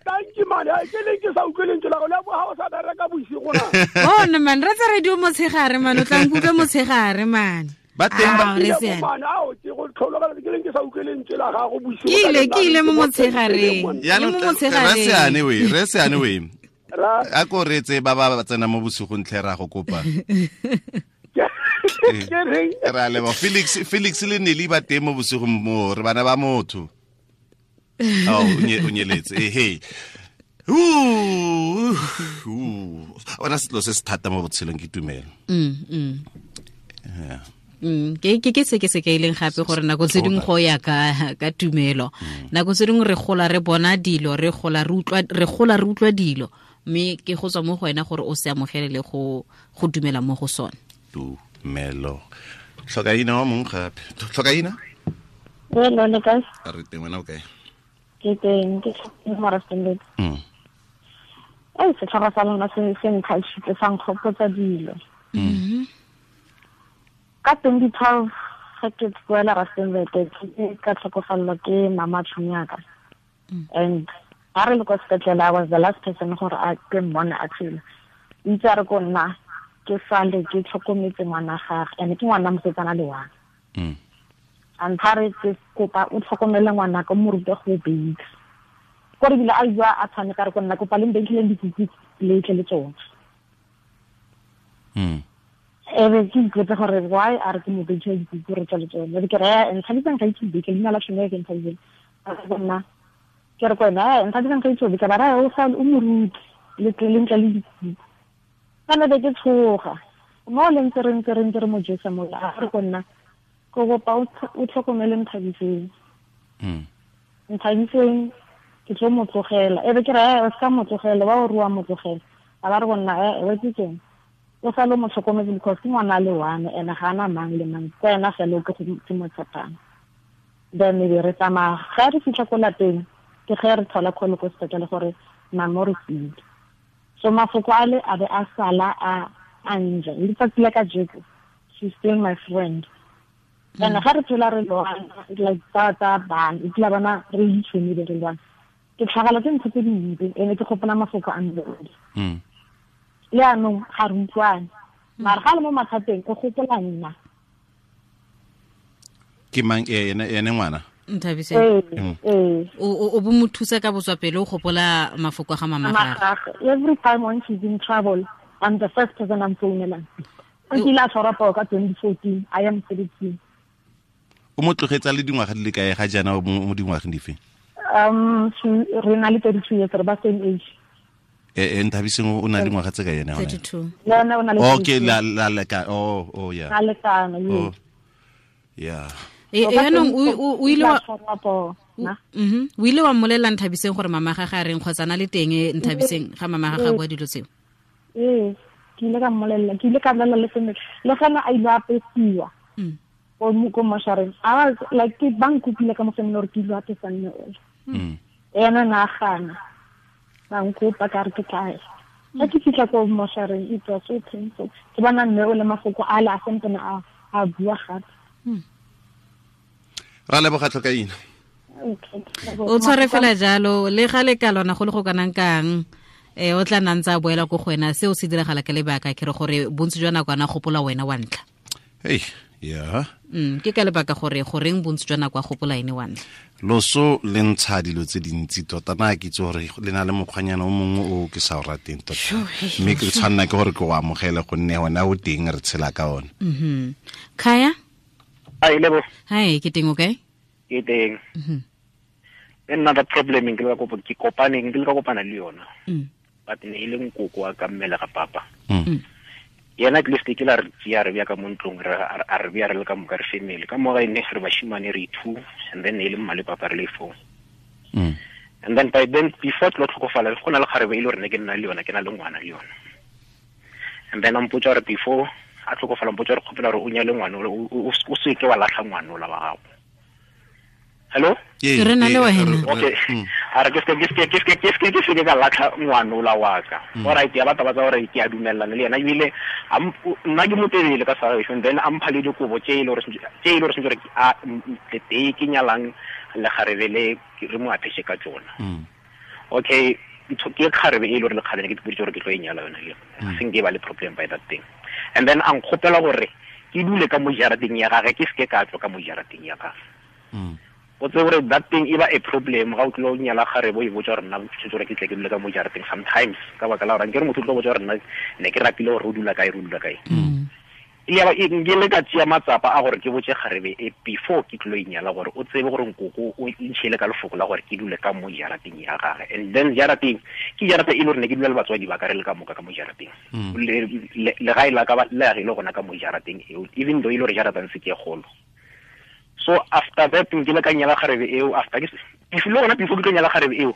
Thank you man ke le ke sa utlwe lentswe la go lebo ha o sa bereka bosigo na. Oh no man re tsa radio motshegare man o tla nkutlwa motshegare man. Ba teng ba Reseane. Ao ke go tlhologela ke leng ke sa utlwe lentswe la gago bosigo. Ke ile mo motshegareng. Le mo motshegareng. Reseane we. A ko retse ba ba tsena mo bosigong tlhe ra go kopa. Ra lebo Felix le Nelly ba teng mo bosigong mo re bana ba motho. Oh o nyeletse hey. Ona selo se se thata mo botshelong ke tumelo. Yeah. Ke se ke se ke ileng gape gore nako tse dingwe go ya ka tumelo. Nako tse dingwe re gola re bona dilo re gola re utlwa dilo mme ke go tswa mo go wena gore o se amogele le go dumela mo go sone. Tumelo. Tlhokaina wa mong gape. Tlhokaina? Hello, le kae? A re teng wena o kae? Ke teng, ke mo Rustenburg. Setlhogo sa lona se nkgatlhile sa nkgopotsa dilo. Ka 2012 ga ke boela Rustenburg ke ka tlhokofalelwa ke mama tšhomi ya ka. And ga re le kwa sepetlele I was the last person gore a ke mmone a tshela. Itse a re ko nna ke sale ke tlhokometse ngwana gagwe and ke ngwana mosetsana le wa. A re ke kopa o tlhokomele ngwana ka mo rute go bake. Gore bile a bua a tshwane ka re ko nna kopa le mbenkileng dikuku le tle le tsone. Ebe ke ipotsa gore why a re ke mo benkile dikuku re tswa le tsone. Ke re nthabisang ga itse beke leina la tšhomi ke nthabisang. A re nna ke re ko ena nthabisang ga itse beke ba ra o sa o mo rute le tle le ntle le dikuku. Kana be ke tshoga. Mo le ntse re mo jesa mo a re ko nna ko kopa o tlhokomele Nthabiseng. Nthabiseng ke tlo mo tlogela. Ebe ke re o ska mo tlogela ba o rua mo tlogela. A ba re go nna e ke keng. O sa lo mo tlhokometse because ke ngwana le one ene ga ana mang le mang. Ke ena fela o ke go mo tshepang. Then be re tsamaya ga re fitlha ko lapeng ke ge re thola call ko sepetlele gore mama re file. So mafoko ale a be a sala a nja. Letsatsi la kajeko she's still my friend. And ga re phela re lwana like tsa bana e tla bana re itshwene re lwana. Ke tlhagala ke ntho tse dintsi ene ke gopola mafoko a mme le anong ga re utlwane mara ga le mo mathateng o gopola nna. Ke mang ene ngwana? Nthabiseng. O bo mo thusa ka botswapele o gopola mafoko a ga mama gagwe. Every time when she's in trouble, I'm the first person I'm phonelang. O kile a tshwara poo ka 2014, I am 32. O mo tlogetsa le dingwaga di le kae ga jaana mo dingwageng dife? Re na le 32 years, re ba same age. Nthabiseng o na le dingwaga tse ka yena gone? 32. Le ena o na le 32. Okay, la leka. Oh yeah. La lekana, yes. Yeah. Yaanong o ile wa o ile wa mmolelela Nthabiseng gore mama ga ga reng kgotsa na le teng Nthabiseng ga mama ga ga bua dilo tseo? Ee, ke ile ka mmolelela, ke ile ka bolela le family. Le gona a ile a apesiwa. Ko moshareng. I was like, ke ba nkopile ka mo family gore ke ile apesa mme ole. Ena na gana. Ba nkopa ka re ke tla ya. Ga ke fitlha ko moshareng, it was so painful. Ke bona mme ole mafoko a le a sentene a bua gape. Ra leboga tlhokaina. O tshware fela jalo le ga le ka lona go le go kanang kang o tla nna ntse a boela ko go wena seo se diragala ka lebaka ke re gore bontsi jwa nako ana gopola wena wa ntlha. Hey, yeah. Ke ka lebaka gore goreng bontsi jwa nako a gopola ene wa ntlha. Loso le ntsha dilo tse dintsi tota na ke itse gore le na le mokgwanyana o mongwe o ke sa o rateng tota. Mme ke tshwanna ke gore ke o amogele gonne ona o teng re tshela ka ona. Khaya? Hi, Lebo. Hi, ke teng okay? Ke teng. Another problem ke le ka kopaneng ke le ka kopana le yona. But ne ile nkoko wa ka mmele ga papa. Yena at least ke la re tsia re bya ka mo ntlong re a re bya re le ka moka re family. Ka mo ga ene re bashimane re 2 and then ne ile mma le papa re le 4. And then by then before tlo tlhokofala go na le kgarebe ile re ne ke nna le yona ke na le ngwana le yona. And then a mpotsa re before a tlhokofala mpotsa re kgopela re o nyale ngwana o se ke wa latlha ngwana ola wa gago. Hello? Re na le wena. Okay. A re ke se ka latlha ngwana ola wa ka. All right, ya batla ba tsa gore ke a dumellana le yena ebile nna ke motelele ka sa and then a mpha le dikobo tse ile gore sentse gore a tete ke nyalang le kgarebe le re mo apeshe ka tsona. Okay, ke kgarebe e le gore le kgarebe ke dipoditse gore ke tlo e nyala yona le. Se nke ba le problem by that thing. And then a nkgopela gore ke dule ka mo jarateng ya gagwe ke seke ka tswa ka mo jarateng ya gagwe. O tsebe gore that thing e ba a problem ga o tlilo nyala kgarebe o e botsa gore nna tshwetse gore ke tle ke dule ka mo jarateng sometimes ka baka la gore nkere motho o tlo botsa gore nna ne ke rapile gore o dula kae re o dula kae. Ya ba ke le ka tšea matsapa a gore ke botse kgarebe e before ke tlo e nyala gore o tsebe gore nkoko o ntšhele ka lefoko la gore ke dule ka mo jarateng ya gagwe. And then jarateng ke jarata e le gore ne ke dula le batswadi ba ka re le ka moka ka mo jarateng. Legae la ka le agile gona ka mo jarateng eo even though e le gore jarateng se ke kgolo. So after that ke le ka nyala kgarebe eo after ke le gona before ke tlo nyala kgarebe eo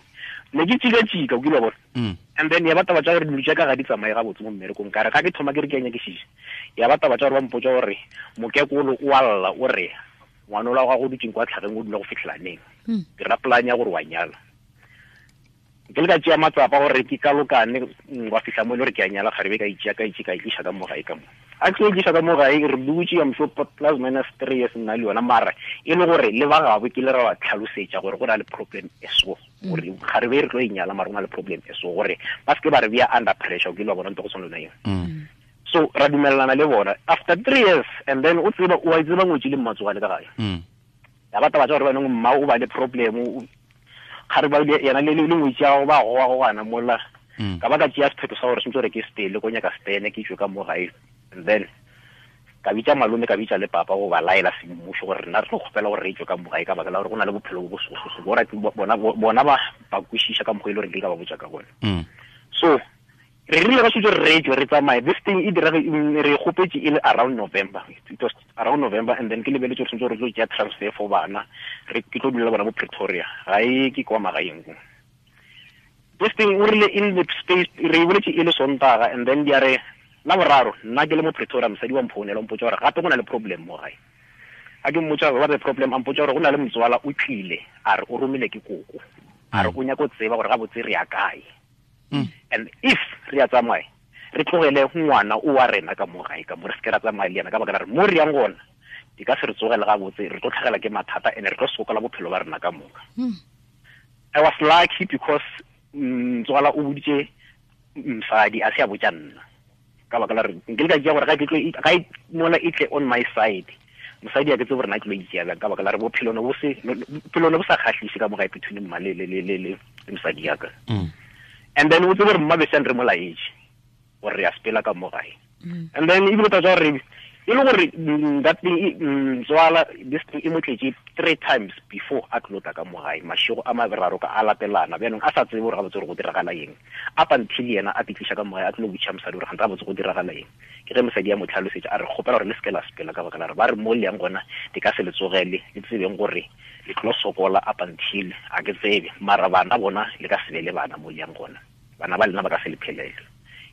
ne ke tšika o kile wa bona. And then ya batla ba tsa gore dilo tša ka ga di tsamaye gabotse mo mmerekong ka re ga ke thoma ke re ke a nyakišiša ya batla ba tsa gore ba mpotsa gore mokekolo o a lla o re ngwana ola wa gago o dutseng kwa tlhageng o dula go fitlhela neng. Ke ra plan ya gore wa nyala. Ke le ka tšea matsapa gore ke kalokane wa fitlha mo e le gore ke a nyala kgarebe ka itšea ka itše ka itliša ka mo gae ka mo. A ke itliša ka mo gae re dutše I'm sure plus minus 3 years nna le yona mara e le gore le ba gabo ke le ra ba tlhalosetša gore go na le problem e so gore kgarebe re tlo e nyala mara go na le problem e so gore ba seke ba re bea under pressure o ke le wa bona ntho go tshwana le yona eo. So ra dumelelana le bona after 3 years and then o tseba o a tseba ngwetsi le mmatsogale ka gae. Ya batla ba tsa gore ba neng mma o ba le problem kgare ba yena le ngwetsi ya go ba goa go gana mola ka ba ka tšea sephetho sa gore sentse gore ke stele ko nyaka stene ke tswe ka mo gae. And then ka bitsa malome ka bitsa le papa go ba laela semmušo gore rena re tlo kgopela gore re tswe ka mo gae ka baka la gore go na le bophelo bo bosososo bona bona ba ba kwešiša ka mokgwa e le gore ke ka ba botsa ka gona. So re rile ka setse re tswe re tsamaye this thing e dira re kgopetse e le around November. It was around November and then ke lebeletse gore sentse re tlo tšea transfer for bana re ke tlo dula bona mo Pretoria ga e ke kwa magaeng ko. This thing o rile in the space re boletse e le Sontaga and then dia re la boraro nna ke le mo Pretoria mosadi wa mphounela o mpotsa gore gape go na le problem mo gae. A ke mmotsa gore what the problem a mpotsa gore go na le motswala o tlile a re o romile ke koko a re o nyaka go tseba gore gabotse re ya kae. And if re a tsamaya re tlogele ngwana o wa rena ka mo gae ka mo re seke ra tsamaya le yena ka baka la re mo re yang gona di ka se re tsogele gabotse re tlo tlhagela ke mathata and re tlo sokola bophelo ba rena ka moka. I was lucky because ntswala o boditse mosadi a se a botsa nna ka baka la re nke le ka tšea gore ga e mola e tle on my side mosadi a ke tsebe gore na ke lo itšea bjang ka baka la re bophelo ne bo sa kgahlise ka mo gae between mma le mosadi ya ka. And then o tsebe gore mma beseng re mo laetše gore re a sepela ka mo gae. And then ebile taba tsa gore e le gore that thing ntswala this thing e mo tletse 3 times before a tlo tla ka mo gae mašego a maberaro ka a latelana bjanong a sa tsebe gore gabotse gore go diragala eng up until yena a pitliša ka mo gae a tlo botša mosadi gore gante gabotse go diragala eng. Ke ge mosadi ya mo tlhalosetša a re kgopela gore le seke la sepela ka baka la re ba re mo le yang gona di ka se le tsogele le tsebeng gore le tlo sokola up until a ke tsebe mara bana bona le ka se be le bana mo le yang gona bana ba lena ba ka se le phelele.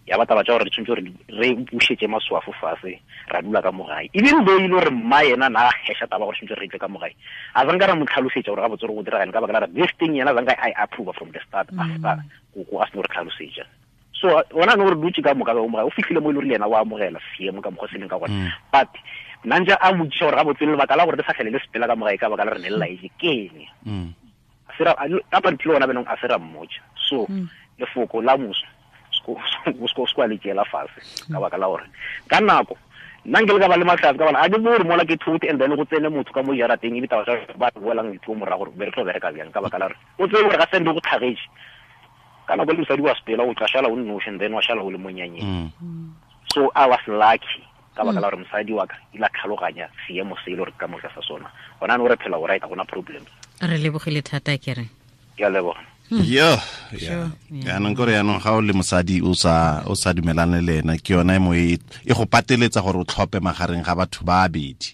Ya ba taba tša gore re tshwanetse gore re bušetše maswafo fase ra dula ka mo gae even though e le gore mma yena na heša taba gore tshwanetse re tle ka mo gae a zanka ra mo tlhalosetša gore gabotse gore go diragane ka baka la re this thing yena zanka I approve from the start after koko a seno re tlhalosetša. So ona no re dutse ka moka ba mo gae o fihlile mo e le gore le yena wa amogela seemo ka mokgwa se leng ka gona but nna ntse a motšiša gore gabotse lebaka la gore re sa tlhele le sepela ka mo gae ka baka la re ne le laetše ke eng up until ona benong a se ra mmotša. So lefoko la moso o le tšeela fase ka baka la gore ka nako nna nke le ka ba le mahlatse ka bana a ke bore mola ke thote and then go tsene motho ka mo jarateng e bitaba tsa ba boelang dithuo morago gore be re tlo bereka bjang ka baka la gore o tsebe gore ga sende go tlhagetše ka nako le mosadi wa sepela o tla šala o nnoši and then wa šala o le monyanyeng. So I was lucky ka baka la gore mosadi wa ka ile a tlhaloganya seemo se e le gore ka moka sa sona gona no re phela o right ga gona problem. Re lebogile thata ke re ke a leboga. Yo, yaanong kore yaanong ga o le mosadi o sa dumelane le ena ke yona e mo e go pateletsa gore o tlhope magareng ga batho ba babedi.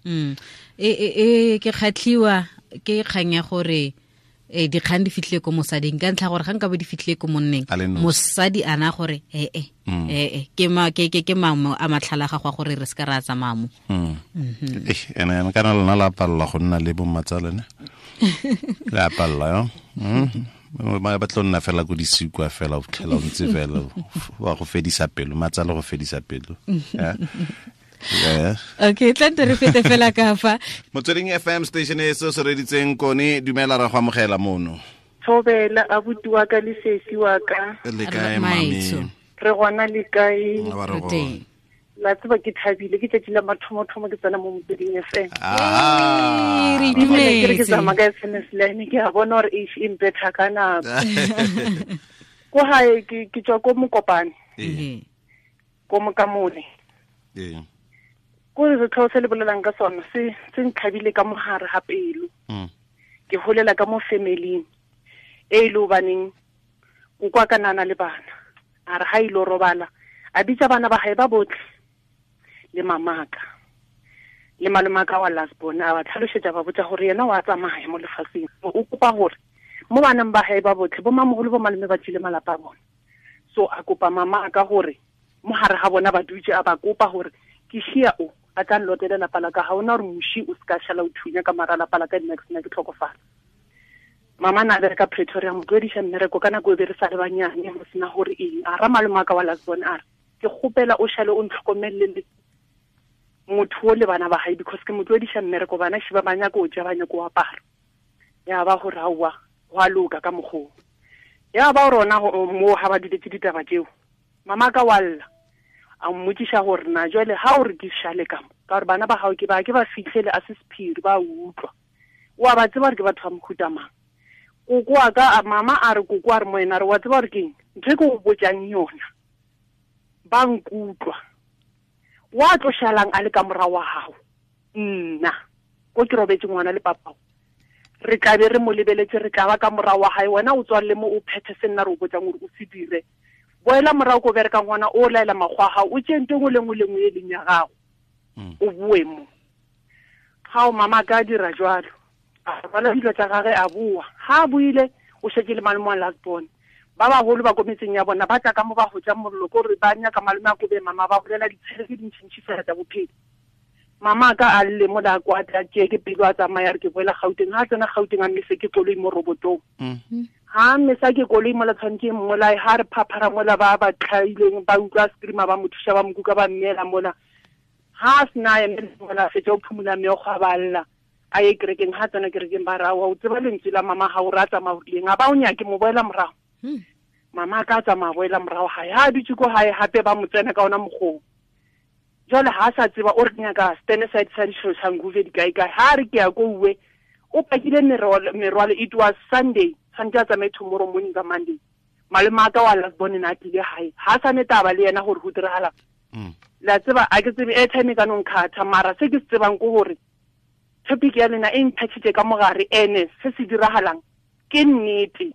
Ke kgatlhiwa ke kgang ya gore dikgang di fitlhile ko mosading ka ntlha gore ga nka bo di fitlhile ko monneng mosadi ana gore ke mangwe a matlhala ga gwa gore re se ka ra tsamaya mo. Ene kana lona la palla go nna le bommatsalene la palla yo. Ba tlo nna fela ko disikwa fela o fitlhela o ntse fela wa go fedisa pelo matsalo go fedisa pelo. Okay, tla nte re fete fela ka fa Motsweding FM station e se se reditseng kone dumela ra go amogela mono. Thobela abuti wa ka le sesi wa ka le kae mami re gona le kae la tseba ke thabile ke tsatsi la mathomo-thomo ke tsena mo Motsweding FM. Re itumetse ke tsamaya ka SMS line ke a bona gore e mpetha ka nako. Ko hae ke tswa ko Mokopane ko Mokamole ko re setlhogo se le bolelang ka sona se ntlhabile ka mogare ga pelo. Ke holela ka mo familing e ile hobaneng o kwa ka nana le bana a re ha ile robala a bitsa bana ba hae ba botlhe le mamaka le malomaka wa last born a ba tlhalosetsa ba botsa gore yena wa tsamaya mo lefatsheng o kopa gore mo baneng ba hae ba botlhe bo mamogolo bo malome ba tsile malapa a bona. So a kopa mama ka gore mo hare ga bona ba dutse a ba kopa gore ke shia o a tla nlotela lapa la ka ga ona gore moši o se ka šala o thunya ka mara lapa la ka next nna ke tlhokofala. Mama na bereka Pretoria mo tlwediša mmereko ka nako e be re sa le banyane go sena gore eng a ra malomaka wa last born a re ke kgopela o šale o ntlhokomelele motho o le bana ba hae because ke mo tlwediša mmereko bana shi ba ba nyaka o ja ba nyaka o apara. Ya ba gore aowa go a loka ka mokgoo ya ba rona mo ga ba duletse ditaba tseo mama ka wa lla a mmotšiša gore na jwale ha o re ke šale ka mo ka gore bana ba gago ke ba fitlhele a se sephiri ba utlwa o a ba tseba gore ke batho ba mohuta mang. Koko wa ka mama a re koko a re mo ena re wa tseba gore keng ntho e ke go botjang yona ba nkutlwa wa tlo šalang a le ka morago wa gago nna ko ke robetse ngwana le papao re tla be re mo lebeletse re tla ba ka morago wa gae wena o tswalele mo o phethe se nna re o botsang gore o se dire boela morago ko bereka ngwana o laela makgwa a gago o tšee ntho engwe le nngwe le nngwe e leng ya gago o boe mo ga o mama ka dira jwalo a rwala dilo tsa gage a boa ga a boile o šetse le malome wa last born ba bagolo ba ko metseng ya bona ba tla ka mo ba hotsa mollo ko re ba nyaka malome a kobe mama ba bolela ditshele tse dintšintši fela tsa bophelo. Mama ka a lle mo la kwa tla tšee ke pelo a tsamaya re ke boela Gauteng ha tsena Gauteng a mmese ke koloi mo robotong ha mmesa ke koloi mola tshwanetse mmolae ha re phaphara mola ba ba tlhaileng ba utlwa screamer ba mo thuša ba mo kuka ba mmeela mola ha a sena emele mola fetša o phumula meokgo a ba lla A ye kerekeng, ha tsena kerekeng ba ra wa o tseba lentswe la mama ha o ra tsamaya o rileng, a ba o nyake mo boela morago. Mama ka tsamaya boela morago hae, ha dutse ko hae hape ba mo tsena ka ona mokgong. Jwale ha sa tseba o re nyaka stand side sa Soshanguve di kae kae, ha re ke ya ko uwe o pakile merwalo. It was Sunday, tshwanetse a tsamaye tomorrow morning ka Monday. Malome a ka wa last born na tlile hae, ha sa ne taba le yena gore go diragala. La tseba a ke tsebe airtime ka no nkhatha, mara se ke se tsebang ke gore topic ya lena e nthatshitse ka mogare, ene se se diragalang ke nnete.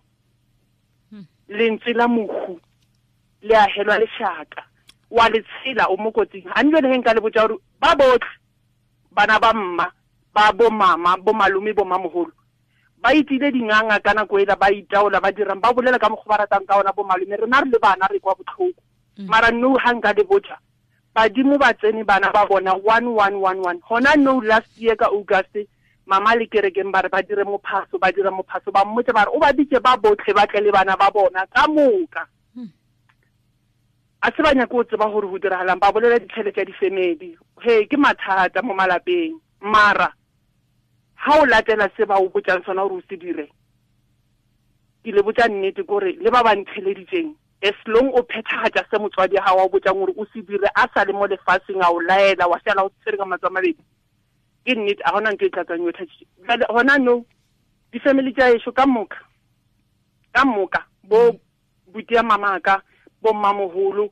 Lentswe la mohu le a helwa lešaka, wa le tshela o mo kotsing. Ha njwale he nka le botsa gore ba botlhe bana ba mma ba bo mama bo malome bo mamoholo ba itile dinganga ka nako ela, ba itaola ba dirang ba bolela ka mokgwa ba ratang ka ona bo malome. Rena re le bana re kwa botlhoko, mara no ha nka le botsa badimo ba tsene bana ba bona 1111. Hona no last year ka August mama le kerekeng ba re ba dire mophaso, ba dira mophaso, ba mmotse ba re o ba bitse ba botlhe ba tle le bana ba bona ka moka. A se ba nyaka o tseba gore go diragalang, ba bolela ditšhelete tša di-family. He ke mathata mo malapeng, mara ha o latela se ba o botsang sona gore o se dire, ke le botsa nnete kore le ba ba ntheleditseng, as long o phethagatša se motswadi ha wa o botsang gore o se dire a sa le mo lefatsheng, a o laela wa sala o tshwere ka matsoho a mabedi, ke nnete a gona ntho e tla tswang yo thathitše. Jwale hona no di-family tša ešo ka moka bo buti ya mamaka bo mmamoholo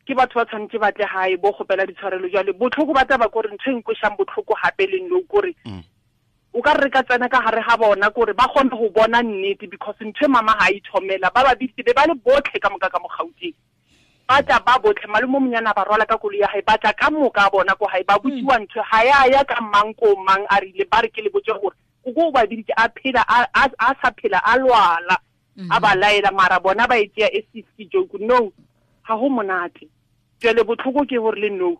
ke batho ba tshwanetse ba tle hae bo kgopela ditshwarelo. Jwale botlhoko ba taba kore ntho e nkwešang botlhoko hape le nno kore o ka re ka tsena ka gare ga bona kore ba kgone go bona nnete, because ntho e mama ha ithomela ba ba bitse be ba le botlhe ka moka ka mo Gauteng, ba tla ba botlhe. Malome o monyana ba rwala ka koloi ya hae, ba tla ka moka a bona ko hae, ba botsiwa ntho ha ya ya ka mang ko mang a rile ba re ke le botse gore o ko ba biditse a phela a sa phela a lwala a ba laela, mara bona ba e tšea e se joke. No, ha ho monate. Jwale botlhoko ke gore le no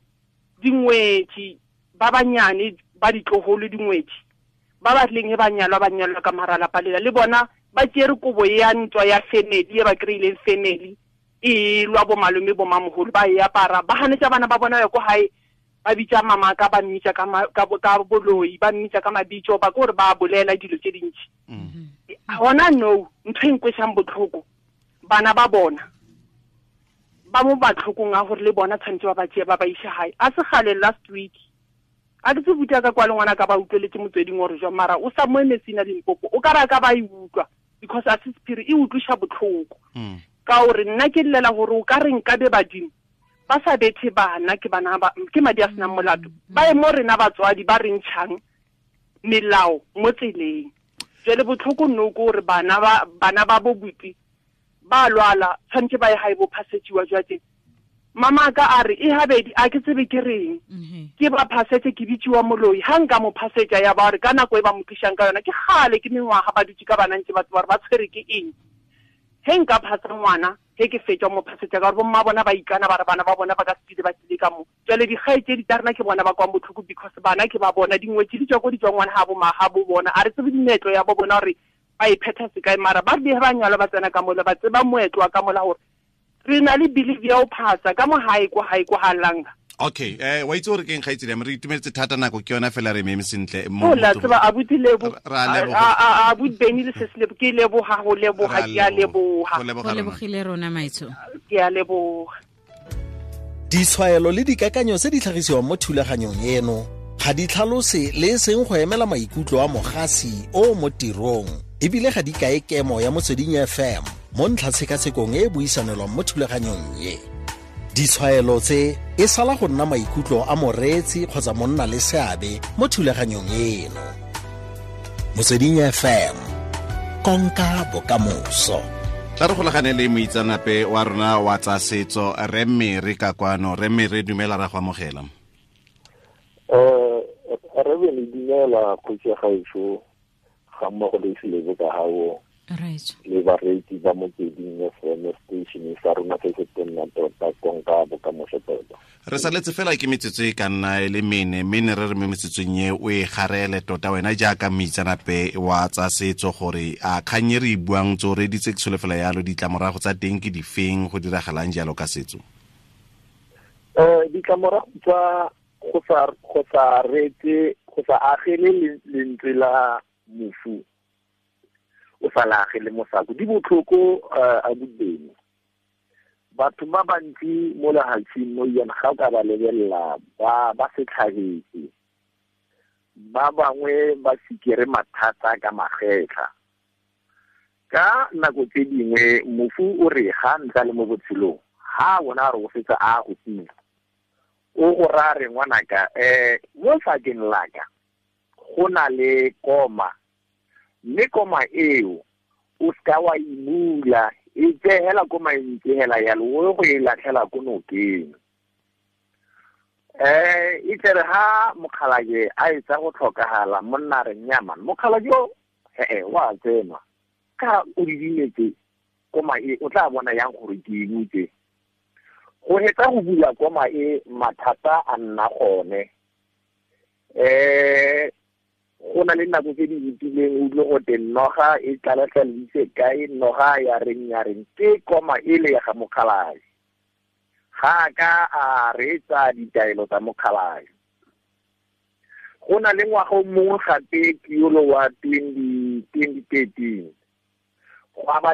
dingwetsi ba banyane ba ditloholo dingwetsi ba ba tleng ba nyalwa ba nyalwa ka mara lapa lela le bona ba tšere kobo ya ntwa ya family e ba kry-ileng family e lwa bo malome bo mamoholo ba e apara, ba hanetsa bana ba bona ya ko hae, ba bitsa mama ka ba mmitsa ka boloi, ba mmitsa ka mabitso, ba kore ba bolela dilo tse dintsi. Hona no ntho e nkwešang botlhoko, bana ba bona ba mo batlhokong a gore le bona tshwanetse ba ba tšee ba ba ise hae. A se gale last week a ke tse buta ka kwa le ngwana ka ba utlweletse motsweding gore jwa, mara o sa mo emetsina Limpopo o ka ra ka ba e utlwa, because a se sephiri e utlwisha botlhoko. Ka gore nna ke llela gore o ka re nka be badimo ba sa bethe bana, ke bana ba ke madi a senang molato, ba ye mo rena batswadi ba re ntšhang melao mo tseleng. Jwale botlhoko nno ke gore bana ba bo buti ba lwala tshwanetse ba ye hae bo phasetsiwa jwa teng. Mama ka a re e habedi a ke tsebe ke reng, ke ba phasetse ke bitsiwa moloi, ha nka mo phasetsa ya ba re ka nako e ba mo tlisang ka yona ke gale ke mengwaga ba dutse ka bana ntse batho ba re ba tshwere ke eng. He nka phasa ngwana he ke fetsa mo phasetsa ka gore bomma bona ba ikana ba re bana ba bona ba ka se ba tlile ka mo. Jwale dikgaitsedi tsa rena ke bona ba kwang botlhoko, because bana ke ba bona dingwetsi di tswa ko di tswa ngwana ha bo ma ha bo bona, a re tsebe dimeetlo ya bo bona gore ba e phetha sekae, mara ba re ba nyalwa ba tsena ka mola ba tseba moetlo wa ka mola gore re na le belief ya ho phasa ka mo hae ko hae ko ha langa. Okay, wa itse gore keng kgaitsedi, re itumeletse thata nako ke yona fela re meme sentle. O la tseba abuti lebo a abuti Benny le se lebo ke leboha ho leboha ke a leboha. Go lebogile rona maitsho. Ke a leboha. Ditshwaelo le dikakanyo tse di tlhagisiwang mo thulaganyong eno ga di tlhalose le e seng go emela maikutlo a mogasi o mo tirong, ebile ga di kae kemo ya Motsweding FM mo ntlhatshekasekong e e buisanelwang mo thulaganyong e. Ditshwaelo tse e sala go nna maikutlo a moreetsi kgotsa monna le seabe mo thulaganyong eno. Motsweding FM, konka bokamoso. Tla re golagane le moitseanape wa rona wa tsa setso Rre Mere ka kwano. Rre Mere, dumela, ra go amogela. Re be le dumela kgotsi ya gaešo ga mmogo le selebo ka gago le bareetsi ba Motsweding FM station sa rona se se tonna tota konka bokamoso tota. Re saletse fela ke metsotso e ka nna e le mene, mme re re mo metsotsong e o e garele tota wena jaaka moitseanape wa tsa setso gore a kgang e re e buang tse o reditse ke solofela yalo, ditlamorago tsa teng ke difeng, go diragalang jalo ka setso? Ditlamorago tsa go sa reetse Go sa agele lentswe la mofu o sa la agele mosako di botlhoko a bodimo. Batho ba bantsi mo lehatsheng mo yana ga o ka ba lebelela ba setlhagetse, ba bangwe ba sikere mathata ka magetlha. Ka nako tse dingwe mofu o re ga ntsa le mo botshelong ha bona re o fetsa a go tsina o go ra re ngwanaka mo sakeng laka go na le koma, mme koma eo o ska wa imula e tsehela koma e ntsehela yalo o go e latlhela ko nokeng. E tlere ha mokgalajwe a etsa go tlhokagala monna re nyama mokgalajwe o wa tsena ka o didimetse koma e o tla bona yang gore ke ibutse. Go hetsa go bula koma e mathata a nna gone. Go na le nako tse di fetileng o utlwe gote noga e tlalatlhalise kae, noga ya reng ke koma e le ya ga mokgalajwe. Ga ka a reetsa ditaelo tsa mokgalajwe. Go na le ngwaga o mongwe gape ke yolo wa 2013 go aba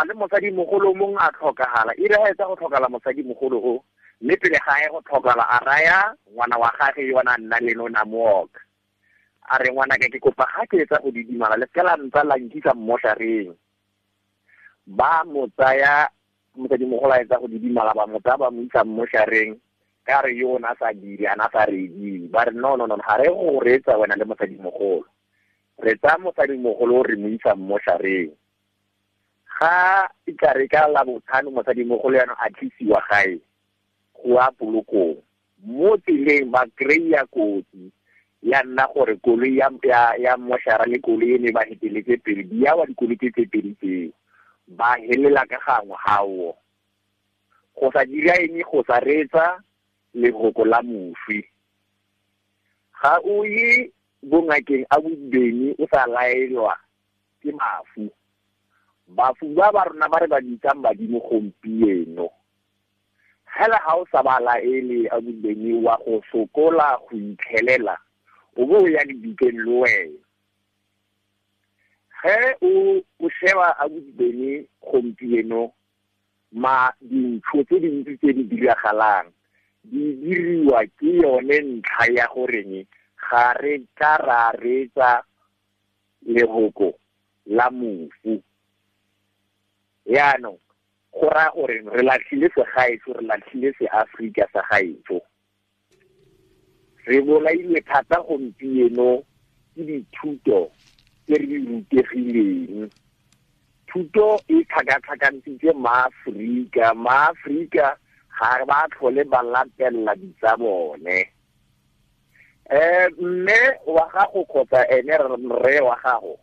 le mosadimogolo mongwe a tlhokagala. E re ga etsa go tlhokala mosadimogolo o mme pele ga ye go tlhokala a raya ngwana wa gage yona nna le nona mooka a re ngwana ka ke kopa ga ke etsa go didimala le seka la ntsa la nkisa mmoshareng. Ba mo tsaya mosadimogolo a etsa go didimala ba mo tsaya ba mo isa mmoshareng ka re yo na sa dire ana sa rediwe. Ba re no ga re go reetsa wena le mosadimogolo, re tsaya mosadimogolo re mo isa mmoshareng. Ga e tla re ka la botlhano mosadimogolo yana a tlisiwa gae go a polokong. Mo tseleng ba kry-a kotsi ya nna gore koloi ya moshara le koloi e ne ba heteletse pele di ya wa dikoloi tse pedi tseo ba helela ka gangwe gao. Go sa dira eng go sa reetsa lehoko la moswi. Ga o ye bongakeng a bodibeng o sa laelwa ke mafu. Bafu ba ba rona ba re ba bitsang badimo gompieno hela ga o sa ba laele a bodibeng wa go sokola go itlhelela o bo o ya dibikeng le wena. Ge o sheba a bodibeng gompieno ma dintho tse dintsi tse di diragalang di diriwa ke yone ntlha ya goreng ga re ka ra reetsa lehoko la mofu. Yaanong go raya gore re latlhile segaetsho, re latlhile seAforika sa gaetsho. Re bolailwe thata gompieno ke dithuto tse re di rutegileng. Thuto e tlhakatlhakantshitse maAforika, maAforika ga ba tlhole ba latelela ditsa bone. Mme wa gago kgotsa ene rre wa gago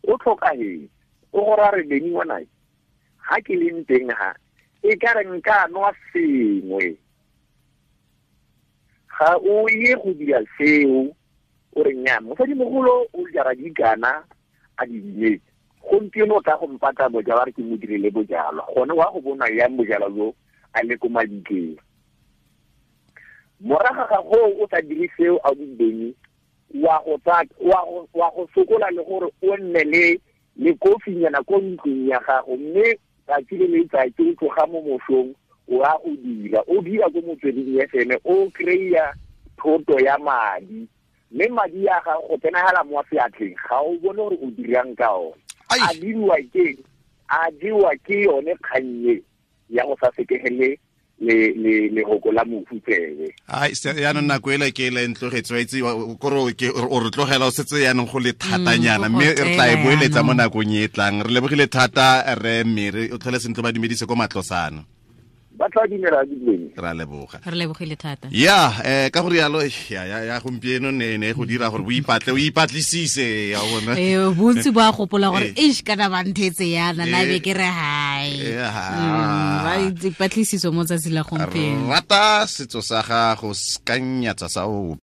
o tlhokagetse o go ra re beni ngwana ga ke leng teng ha e ka re nka nwa sengwe. Ga o ye go dira seo o re nya mosadimogolo o jara dikana a di dinetse gompieno o tla go mpatla bojalwa re ke mo direle bojalwa gone wa go bona yang bojalwa jo a le ko mabitleng. Morago ga go o sa dire seo a bodibeng wa go sokola le gore o nne le kofinyana ko ntlong ya gago mme tsatsi le letsatsi o tloga mo mosong o a go dira o dira ko Motsweding FM o kry-a thoto ya madi mme madi a gago go tsenagala mo seatleng ga o bone gore o dirang ka one. A diriwa ke yone kgannye ya go sa sekegele le lehoko la mofu tsebe. Ai yaanong nako ele ke ele ntlogetse wa itse kore o re tlogela o setse yaanong go le thatanyana mme re tla e boeletsa mo nakong e tlang. Re lebogile thata re mme o tlhole sentle ba dumedise ko matlosana. Ba tla dumela dileng. Ra leboga. Re lebogile thata. Ya ka gore yalo ya gompieno ne go dira gore o ipatle o ipatlisise ya bona. Bontsi ba gopola gore eish kana ba nthetse yana na be ke re hai. Ba ipatlisiso mo tsatsi la gompieno. Rata setso sa gago ska nyatsa sa o.